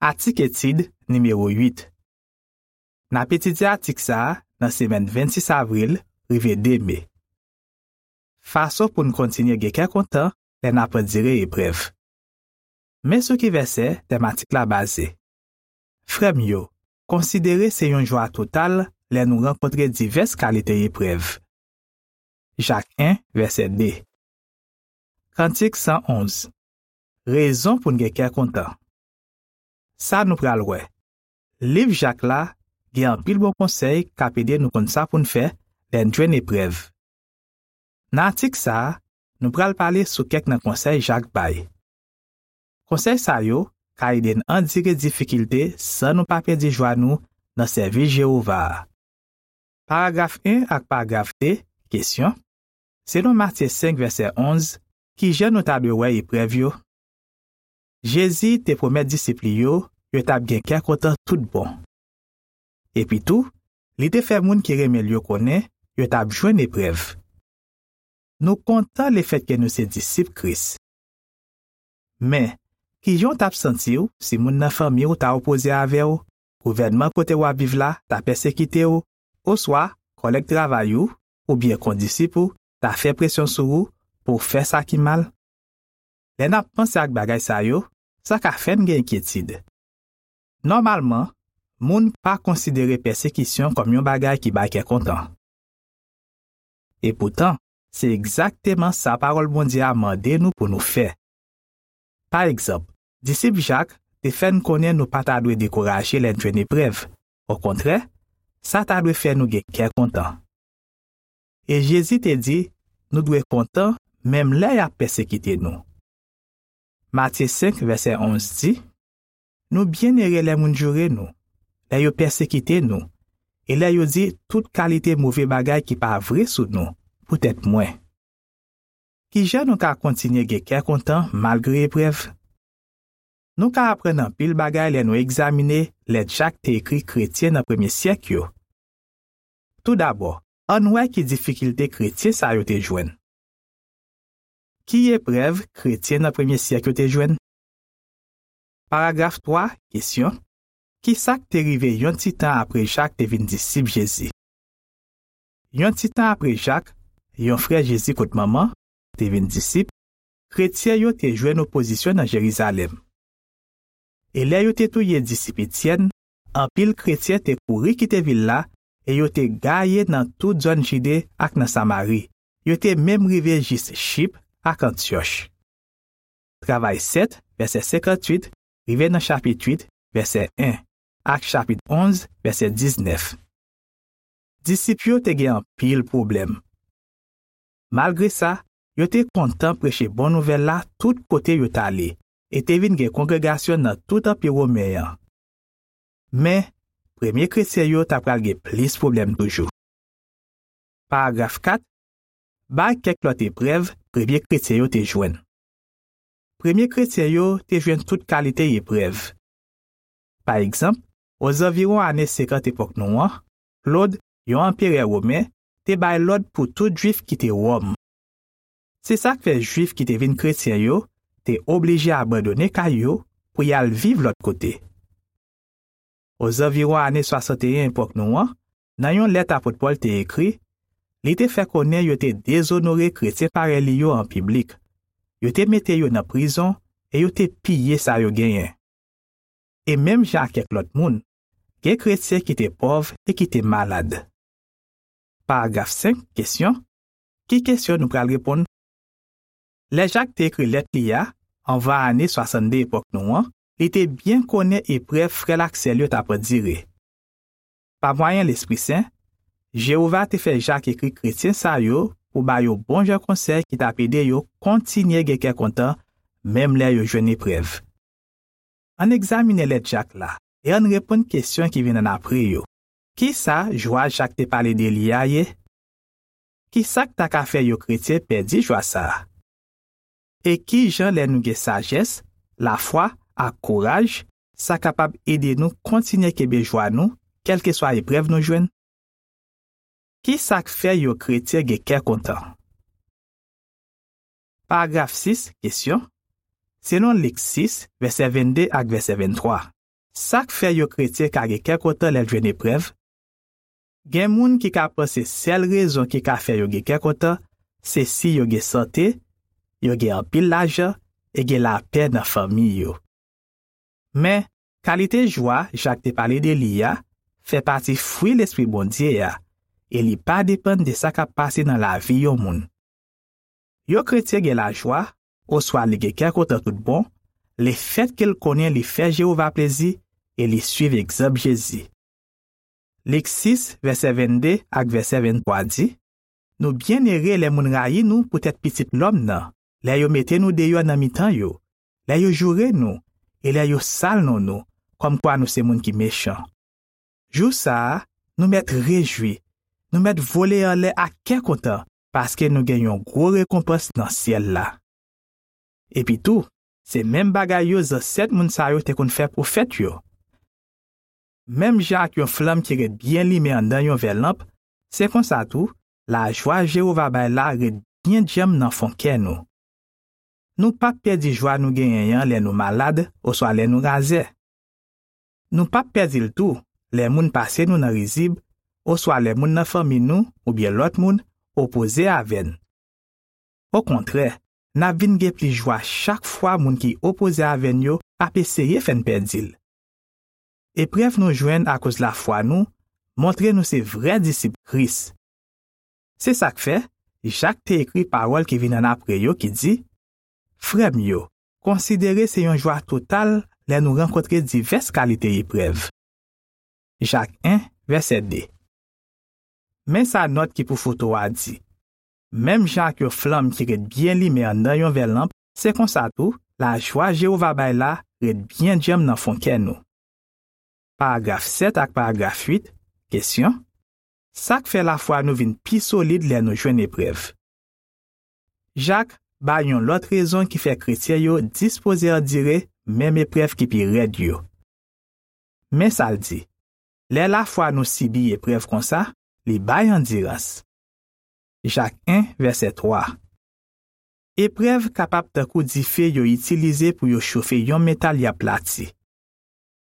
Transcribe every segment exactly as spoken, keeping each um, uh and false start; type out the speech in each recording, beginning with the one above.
Atik etid nimewo uit. N ap etidye atik sa a nan semèn vennsis avril rive de me. Fason pou n kontinye gen kè kontan lè n ap andire eprèv. Men sou ki vèsè tèm atik la baze. Frè m yo, konsidere se yon jwa total lè nou rankontre divès kalite eprèv. Jak en, vèsè de. Kantik san onz. Rezon pou n gen kè kontan. Sa nou pral wè. Liv Jak la gen anpil bon konsèy k ap ede nou konn sa pou n fè lè n jwenn eprèv. Nan atik sa a, nou pral pale sou kèk nan konsèy Jak bay. Konsèy sa yo ka ede n andire difikilte san nou pa pèdi jwa nou nan sèvis Jewova a. Paragraf en ak paragraf de, kesyon. Selon Matye senk, vèsè onz, ki jan nou ta dwe wè eprèv yo? Jezi te pwomèt disip li yo yo t ap gen kè kontan tout bon. Epitou, li te fè moun ki renmen l yo konnen yo t ap jwenn eprèv. Nou kontan lefètke nou se disip Kris. Men, ki jan w t ap santi w si moun nan fanmi w ta opoze avè w, gouvènman kote w ap viv la ta pèsekite w, oswa kòlèg travay ou oubyen kondisip ou ta fè presyon sou ou pou w fè sa ki mal? Lè n ap panse ak bagay sa yo, sa ka fè n gen enkyetid. Nòmalman, moun pa konsidere pèsekisyon kòm yon bagay ki bay kè kontan. Epoutan, se egzakteman sa Pawòl Bondye a mande nou pou nou fè. Pa egzanp, disip Jak te fè n konnen nou pa ta dwe dekouraje lè n jwenn eprèv. Okontrè, sa ta dwe fè nou gen kè kontan. E Jezi te di nou dwe kontan menm lè y ap pèsekite nou. Matye senk, vèsè onz di, nou byennere lè moun joure nou, lè yo pèsekite nou, e lè yo di tout kalite move bagay ki pa vre sou nou, poutèt mwen. Ki jan nou ka kontinye gen kè kontan malgre eprèv? Nou ka aprann anpil bagay lè nou egzamine lèt Jak te ekri kretyen nan premye syèk yo. Toudabò, ann wè ki difikilte kretyen sa yo te jwenn. Ki eprèv kretyen nan premye syèk yo te jwenn? Paragraf twa, kesyon. Ki sa k te rive yon ti tan apre Jak te vin disip Jezi? Yon ti tan apre Jak, yon frè Jezi kot manman, te vin disip, kretyen yo te jwenn opozisyon nan Jerizalèm. E lè yo te touye disip Etyèn, anpil kretyen te kouri kite vil la e yo te gaye nan tout zòn Jide ak nan Samari. Yo te menm rive jis Chip ak Antyòch. Travay sèt, vèsè senkantuit, rive nan chapit uit, vèsè en, ak chapit onz, vèsè diznèf. Disip yo te gen anpil pwoblèm. Malgre sa, yo te kontan preche bon nouvèl la tout kote yo t ale, e te vin gen kongregasyon nan tout Anpi Women an. Men, premye kretyen yo ta pral gen plis pwoblèm toujou. Paragraf kat, bay kèk lòt eprèv premye kretyen yo te jwenn. Premye kretyen yo te jwenn tout kalite eprèv. Pa egzanp, ozanviwon ane senkant epòk nou an, Klod, yon anperè women, te bay lòd pou tout Jwif kite Wòm. Se sa k fè Jwif ki te vin kretyen yo te oblije abandone kay yo pou y al viv lòt kote. Ozanviwon ane swasanteyen epòk nou an, nan yon lèt apot Pòl te ekri, li te fè konnen yo te dezonore kretyen parèy li yo an piblik. Yo te mete yo nan prizon e yo te piye sa yo genyen. E menm jan ak kèk lòt moun, gen kretyen ki te pòv e ki te malad. Paragraf senk, kesyon. Ki kesyon nou pral reponn? Lè Jak te ekri lèt li a, anvan ane swasanndde epòk nou an, li te byen konnen eprèv frè l ak sè l yo t ap andire. Pa mwayen Lespri Sen, Jewova te fè Jak ekri kretyen sa yo pou ba yo bon jan konsèy ki t ap ede yo kontinye gen kè kontan, menm lè yo jwenn eprèv. Ann egzamine lèt Jak la e ann reponn kesyon ki vin annapre yo. Ki sa jwa Jak te pale de li a ye? Ki sa k ta ka fè yon kretyen pèdi jwa sa a? E ki jan lè nou gen sajès, lafwa, ak kouraj, sa kapab ede nou kontinye kenbe jwa nou, kèlkeswa eprèv nou jwenn? Ki sa k fè yon kretyen gen kè kontan? Paragraf sis, kesyon. Selon Lik sis, vèsè vennde ak vèsè venntwa, Sa k fè yon kretyen ka gen kè kontan lè l jwenn eprèv? Gen moun ki ka panse sèl rezon ki ka fè yo gen kè kontan, se si yo gen sante, yo gen anpil lajan, e gen lapè nan fanmi yo. Men, kalite jwa Jak te pale de li a fè pati fwi Lespri Bondye a, e li pa depann de sa k ap pase nan lavi yon moun. Yon kretyen gen lajwa, oswa li gen kè kontan tout bon, lefètke l konnen li fè Jewova plezi e li suiv egzanp Jezi. Lik sis, vèsè vennde ak vèsè venntwa di, nou byennere lè moun rayi nou poutèt Pitit lòm nan, lè yo mete nou deyò nan mitan yo, lè yo joure nou, e lè yo sal non nou, kòmkwa nou se moun ki mechan. Jou sa a, nou mèt rejwi, nou mèt vole anlè ak kè kontan, paske nou gen yon gwo rekonpans nan syèl la. Epitou, se menm bagay yo zansèt moun sa yo te konn fè pwofèt yo. Menm jan ak yon flanm ki ret byen limen anndan yon vè lanp, se konsa tou, lajwa Jewova bay la ret byen djanm nan fon kè nou. Nou p ap pèdi jwa nou genyen an lè nou malad oswa lè nou razè. Nou p ap pèdi l tou lè moun pase nou nan rizib oswa lè moun nan fanmi nou oubyen lòt moun opoze avè n. Okontrè, n ap vin gen plis jwa chak fwa moun ki opoze avè n yo ap eseye fè n pèdi l. Eprèv nou jwenn akoz lafwa nou montre nou se vrè disip Kris. Se sa k fè, Jak te ekri pawòl ki vin annapre yo ki di, Frè m yo, konsidere se yon jwa total lè nou rankontre divès kalite eprèv. Jak en, vèsè de. Men sa nòt ki pou foto a di, Menm jan ak yon flanm ki ret byen limen anndan yon vè lanp, se konsa tou, lajwa Jewova bay la ret byen djanm nan fon kè nou. Paragraf sèt ak paragraf uit, kesyon, Sa k fè lafwa nou vin pi solid lè nou jwenn eprèv? Jak bay yon lòt rezon ki fè kretyen yo dispoze andire menm eprèv ki pi rèd yo. Men sa l di, Lè lafwa nou sibi eprèv konsa, li bay andirans. Jak en, vèsè twa. Eprèv kapab tankou dife yo itilize pou yo chofe yon metal y ap plati.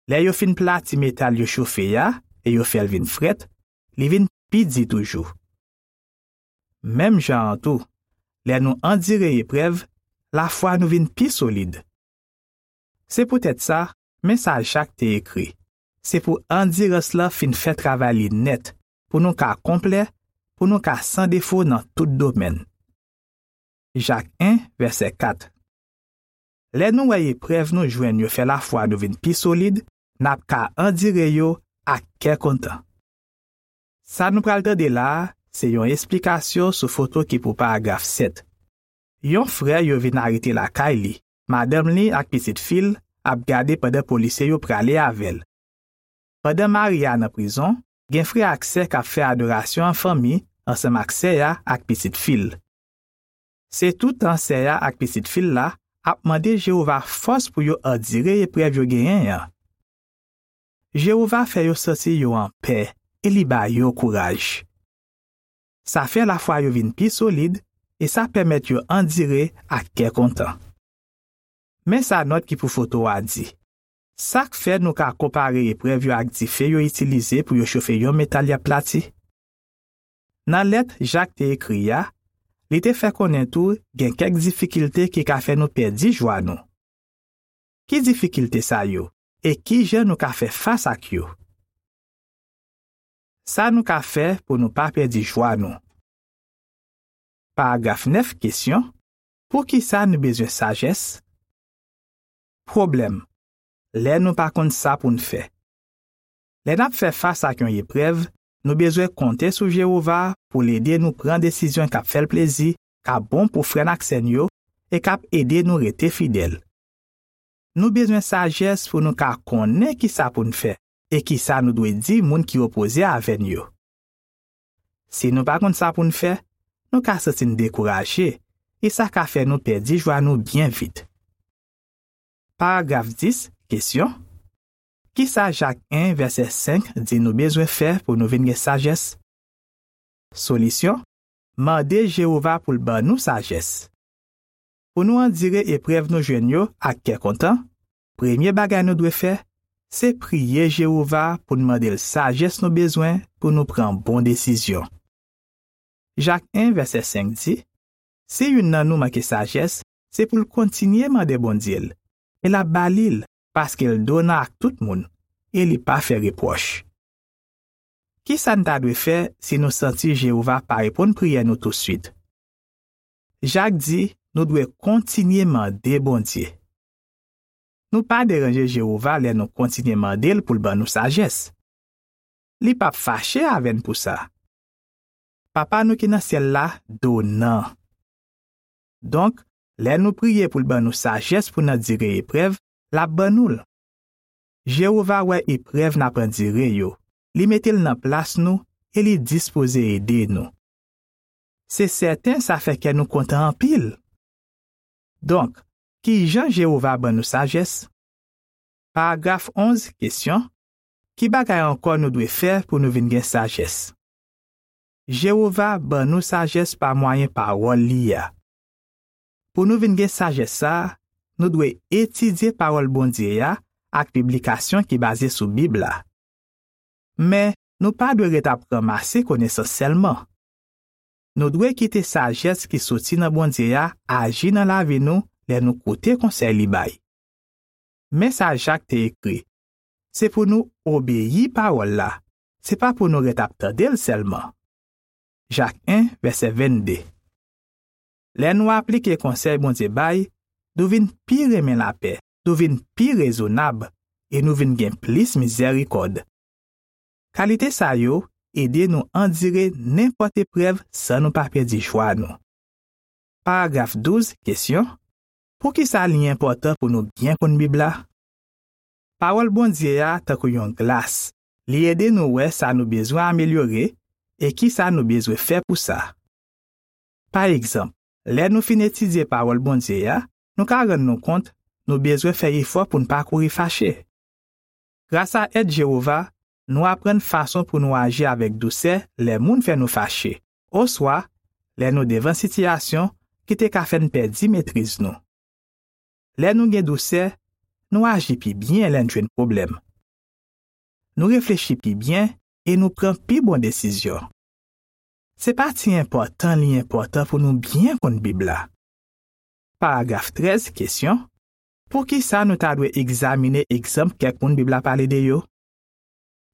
Lè yo fin plati metal yo chofe a e yo fè l vin frèt, li vin pi di toujou. Menm jan an tou, lè nou andire eprèv, lafwa nou vin pi solid. Se poutèt sa, men sa Jak te ekri, Se pou andirans lan fin fè travay li nèt, pou nou ka konplè, pou nou ka san defo nan tout domèn. Jak en, vèsè kat. Lè nou wè eprèv nou jwenn yo fè lafwa nou vin pi solid, n ap ka andire yo ak kè kontan. Sa nou pral tande la a, se yon esplikasyon sou foto ki pou paragraf sèt. Yon frè yo vin arete lakay li, madanm li ak pitit fi l ap gade pandan polisye yo prale avè l. Pandan mari a nan prizon, gen frè ak sè k ap fè adorasyon an fanmi ansanm ak sè a ak pitit fi l. Se toutan sè a ak pitit fi l la ap mande Jewova fòs pou yo andire eprèv yo genyen an. Jewova fè yo santi yo anpè e li ba yo kouraj. Sa fè lafwa yo vin pi solid e sa pèmèt yo andire ak kè kontan. Men sa nòt ki pou foto a di, Sa k fè nou ka konpare eprèv yo ak dife yo itilize pou yo chofe yon metal y ap plati? Nan lèt Jak te ekri a, li te fè konnen tou gen kèk difikilte ki ka fè nou pèdi jwa nou. Ki difikilte sa yo, e ki jan nou ka fè fas ak yo? Sa nou ka fè pou nou pa pèdi jwa nou? Paragraf nèf, kesyon, Poukisa nou bezwen sajès? Pwoblèm, Lè nou pa konn sa pou n fè. Lè n ap fè fas ak yon eprèv, nou bezwen konte sou Jewova pou l ede nou pran desizyon k ap fè l plezi, k ap bon pou frè n ak sè n yo, e k ap ede nou rete fidèl. Nou bezwen sajès pou nou ka konnen ki sa pou n fè e ki sa nou dwe di moun ki opoze avè n yo. Si nou pa konn sa pou n fè, nou ka santi n dekouraje, e sa ka fè nou pèdi jwa nou byen vit. Paragraf dis, kesyon, Ki sa Jak en, vèsè senk di nou bezwen fè pou nou vin gen sajès? Solisyon, Mande Jewova pou l ban nou sajès. Pou nou andire eprèv nou jwenn yo ak kè kontan, premye bagay nou dwe fè, se priye Jewova pou n mande l sajès nou bezwen pou nou pran bon desizyon. Jak en, vèsè senk di, si youn nan nou manke sajès, se pou l kontinye mande Bondye l, e l ap ba li l, paske l donan ak tout moun, e li pa fè repwòch. Ki sa n ta dwe fè si nou santi Jewova pa reponn priyè nou tousuit? Jak di nou dwe kontinye mande Bondye. Nou pa deranje Jewova lè nou kontinye mande l pou l ban nou sajès. Li p ap fache avè n pou sa. Papa nou ki nan syèl la donan. Donk, lè nou priye pou l ban nou sajès pou n andire eprèv, l ap ban nou l. Jewova wè eprèv n ap andire yo, li mete l nan plas nou e li dispoze ede nou. Se sèten sa fè kè nou kontan anpil. Donk, ki jan Jewova ban nou sajès? Paragraf onz, kesyon, ki bagay ankò nou dwe fè pou nou vin gen sajès? Jewova ban nou sajès pa mwayen pawòl li a. Pou nou vin gen sajès sa a, nou dwe etidye pawòl Bondye a ak piblikasyon ki baze sou Bib la. Men, nou pa dwe ret ap ranmase konesans sèlman. Nou dwe kite sajès ki soti nan Bondye a aji nan lavi nou lè nou koute konsèy li bay. Men sa Jak te ekri, se pou nou obeyi pawòl la, se pa pou nou ret ap tande l sèlman. Jak en, vèsè vennde. Lè nou aplike konsèy Bondye bay, nou vin pi renmen lapè, nou vin pi rezonab, e nou vin gen plis mizèrikòd. Kalite sa yo ede nou andire nenpòt eprèv san nou pa pèdi jwa nou. Paragraf douz, kesyon, poukisa li enpòtan pou nou byen konn Bib la? Pawòl Bondye a tankou yon glas. Li ede nou wè sa nou bezwen amelyore e ki sa nou bezwen fè pou sa. Pa egzanp, lè nou fin etidye pawòl Bondye a, nou ka rann nou kont nou bezwen fè efò pou n pa kouri fache. Grasa èd Jewova, nou aprann fason pou nou aji avèk dousè lè moun fè nou fache, oswa lè nou devan sitiyasyon ki te ka fè n pèdi metriz nou. Lè nou gen dousè, nou aji pi byen lè n jwenn pwoblèm. Nou reflechi pi byen e nou pran pi bon desizyon. Se pa ti enpòtan li enpòtan pou nou byen konn Bib la. Paragraf trèz, kesyon, poukisa nou ta dwe egzamine egzanp kèk moun Bib la pale de yo?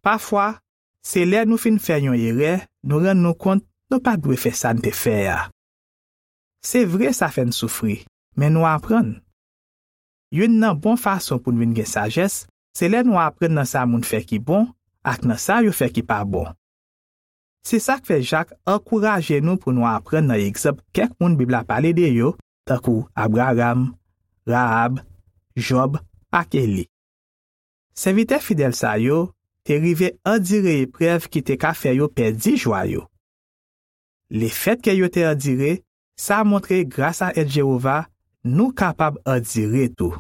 Pafwa, se lè nou fin fè yon erè, nou rann nou kont nou pa t dwe fè sa n te fè a. Se vre sa fè n soufri, men nou aprann. Youn nan bon fason pou n vin gen sajès, se lè nou aprann nan sa moun fè ki bon ak nan sa yo fè ki pa bon. Se sa k fè Jak ankouraje nou pou nou aprann nan egzanp kèk moun Bib la pale de yo, tankou Abraram, Rahab, Jòb ak Eli. Sèvitè fidèl sa yo te rive andire eprèv ki te ka fè yo pèdi jwa yo. Lefètke yo te andire, sa montre grasa èd Jewova, nou kapab andire tou.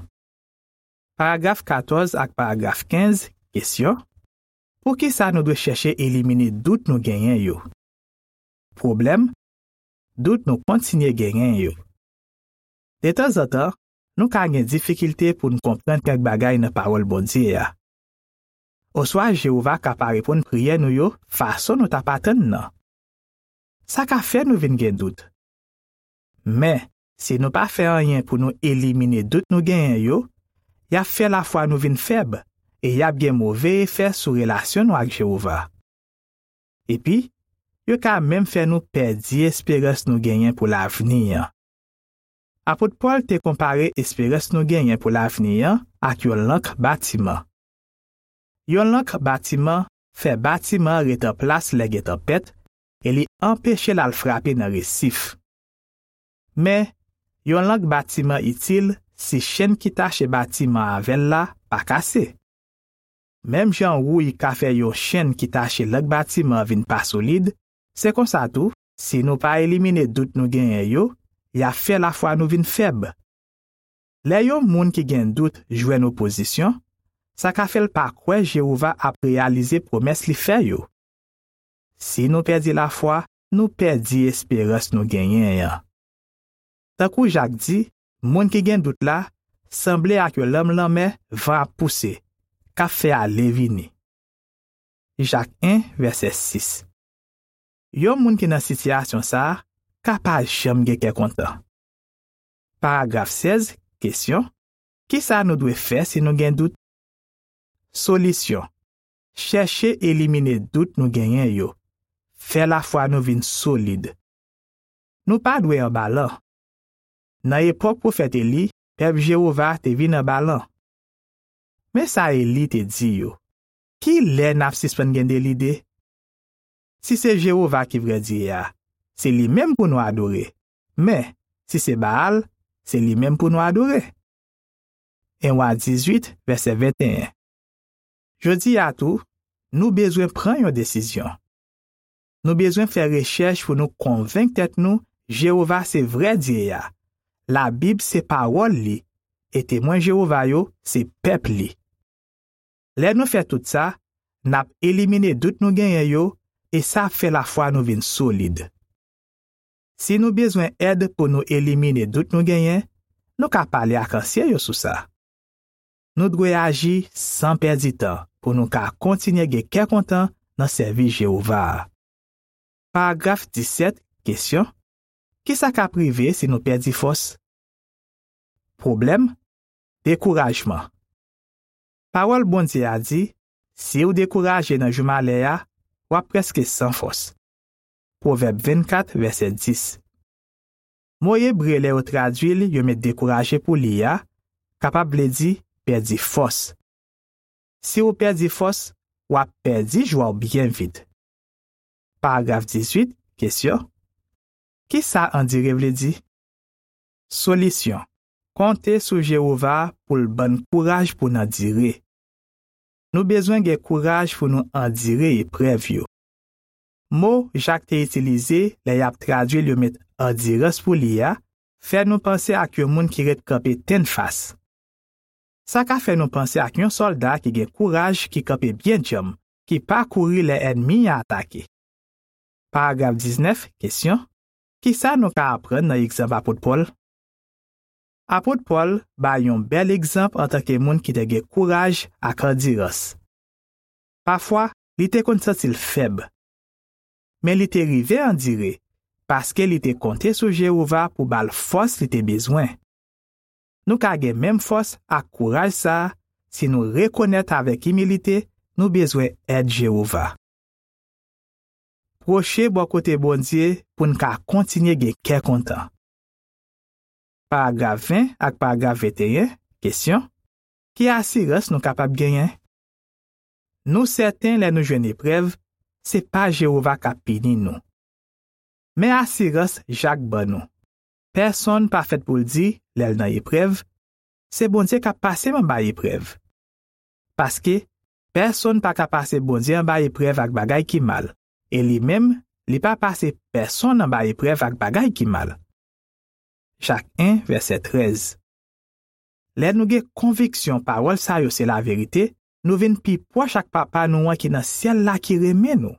Paragraf katòz ak paragraf kenz, kesyon, poukisa nou dwe chèche elimine dout nou genyen yo? Pwoblèm, dout nou kontinye genyen yo. Detanzantan, nou ka gen difikilte pou n konprann kèk bagay nan pawòl Bondye a. Oswa Jewova ka pa reponn priyè nou yo fason nou t ap atann nan. Sa ka fè nou vin gen dout. Men, si nou pa fè anyen pou nou elimine dout nou genyen yo, y ap fè lafwa nou vin fèb e y ap gen move efè sou relasyon nou ak Jewova. Epi, yo ka menm fè nou pèdi esperans nou genyen pou lavni an. Apot Pòl te konpare esperans nou genyen pou lavni an ak yon lank batiman. Yon lank batiman fè batiman an ret an plas lè gen tanpèt e li anpeche l al frape nan resif. Men, yon lank batiman itil si chenn ki tache batiman an avè l la pa kase. Menm jan wouy ka fè yon chenn ki tache lank batiman an vin pa solid, se konsa tou, si nou pa elimine dout nou genyen yo, y ap fè lafwa nou vin fèb. Lè yon moun ki gen dout jwenn opozisyon, sa ka fè l pa kwè Jewova ap reyalize pwomès li fè yo. Si nou pèdi lafwa, nou pèdi esperans nou genyen an. Tankou Jak di, moun ki gen dout la sanble ak yon lanm lanmè van ap pouse, k ap fè ale vini. Jak en, vèsè sis. Yon moun ki nan sitiyasyon sa a ka pa janm gen kè kontan. Paragraf sèz, kesyon: Ki sa nou dwe fè si nou gen dout? Solisyon: chèche elimine dout nou genyen yo. Fè lafwa nou vin solid. Nou pa dwe anbalan. Nan epòk pwofèt Eli, pèp Jewova te vin anbalan. Men sa Eli te di yo: Ki lè n ap sispann gen de lide? Si se Jewova ki vrè Dye a, se li menm pou nou adore. Men, si se Baal, se li menm pou nou adore. En Wa dizuit, vèsè venteyen. Jodi a tou, nou bezwen pran yon desizyon. Nou bezwen fè rechèch pou nou konvenk tèt nou Jewova se vrè Dye a. Labib se pawòl li, e Temwen Jewova yo se pèp li. Lè nou fè tout sa, n ap elimine dout nou genyen yo, e sa ap fè lafwa nou vin solid. Si nou bezwen èd pou nou elimine dout nou genyen, nou ka pale ak ansyen yo sou sa. Nou dwe aji san pèdi tan pou nou ka kontinye gen kè kontan nan sèvis Jewova a. Paragraf disèt, kesyon: Ki sa k ap rive si nou pèdi fòs? Pwoblèm: dekourajman. Pawòl Bondye a di: Si w dekouraje nan jou malè a, w ap prèske san fòs. Pwovèb vennkat, vèsè dis. Mo ebre lè yo tradui l, yo met dekouraje pou li a, kapab vle di pèdi fòs. Si w pèdi fòs, w ap pèdi jwa w byen vit. Paragraf dizuit, kesyon: Ki sa andire vle di? Solisyon: konte sou Jewova pou l ban n kouraj pou n andire. Nou bezwen gen kouraj pou nou andire eprèv yo. Mo Jak te itilize lè y ap tradui l yo met andirans pou li a fè nou panse ak yon moun ki ret kanpe tennfas. Sa ka fè nou panse ak yon sòlda ki gen kouraj, ki kanpe byen djanm, ki pa kouri lè ènmi an atake. Paragraf diznèf, kesyon: Ki sa nou ka aprann nan egzanp apot Pòl? Apot Pòl bay yon bèl egzanp antanke moun ki te gen kouraj ak andirans. Pafwa, li te konn santi l fèb. Men li te rive andire, paske li te konte sou Jewova pou ba l fòs li te bezwen. Nou ka gen menm fòs ak kouraj sa a si nou rekonèt avèk imilite nou bezwen èd Jewova. Pwoche bò kote Bondye pou n ka kontinye gen kè kontan. Paragraf ven ak paragraf venteyen, kesyon: Ki asirans nou kapab genyen? Nou sèten lè nou jwenn eprèv, se pa Jewova k ap pini nou. Men asirans Jak ban nou: pèsonn pa fèt pou l di, lè l nan eprèv, se Bondye k ap pase m anba eprèv. Paske, pèsonn pa ka pase Bondye anba eprèv ak bagay ki mal, e li menm, li pa pase pèsonn anba eprèv ak bagay ki mal. Jak en, vèsè trèz. Lè nou gen konviksyon pawòl sa yo se laverite, nou vin pi pwòch ak Papa nou an ki nan syèl la ki renmen nou.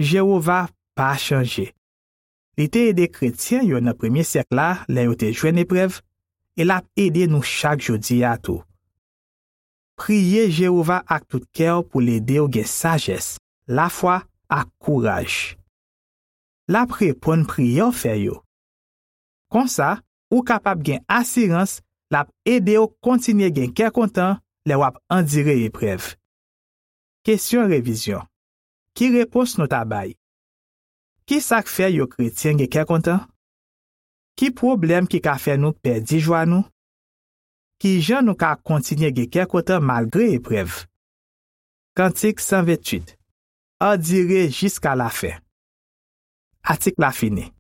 Jewova pa chanje. Li te ede kretyen yo nan premye syèk la lè yo te jwenn eprèv, e l ap ede nou chak jodi a tou. Priye Jewova ak tout kè w pou l ede w gen sajès, lafwa ak kouraj. L ap reponn priyè w fè yo. Konsa, ou kapab gen asirans l ap ede w kontinye gen kè kontan lè w ap andire eprèv. Kesyon revizyon: Ki repons nou ta bay? Ki sa k fè yon kretyen gen kè kontan? Ki pwoblèm ki ka fè nou pèdi jwa nou? Ki jan nou ka kontinye gen kè kontan malgre eprèv? Kantik san venntuit. Andire jiska lafen. Atik la fini.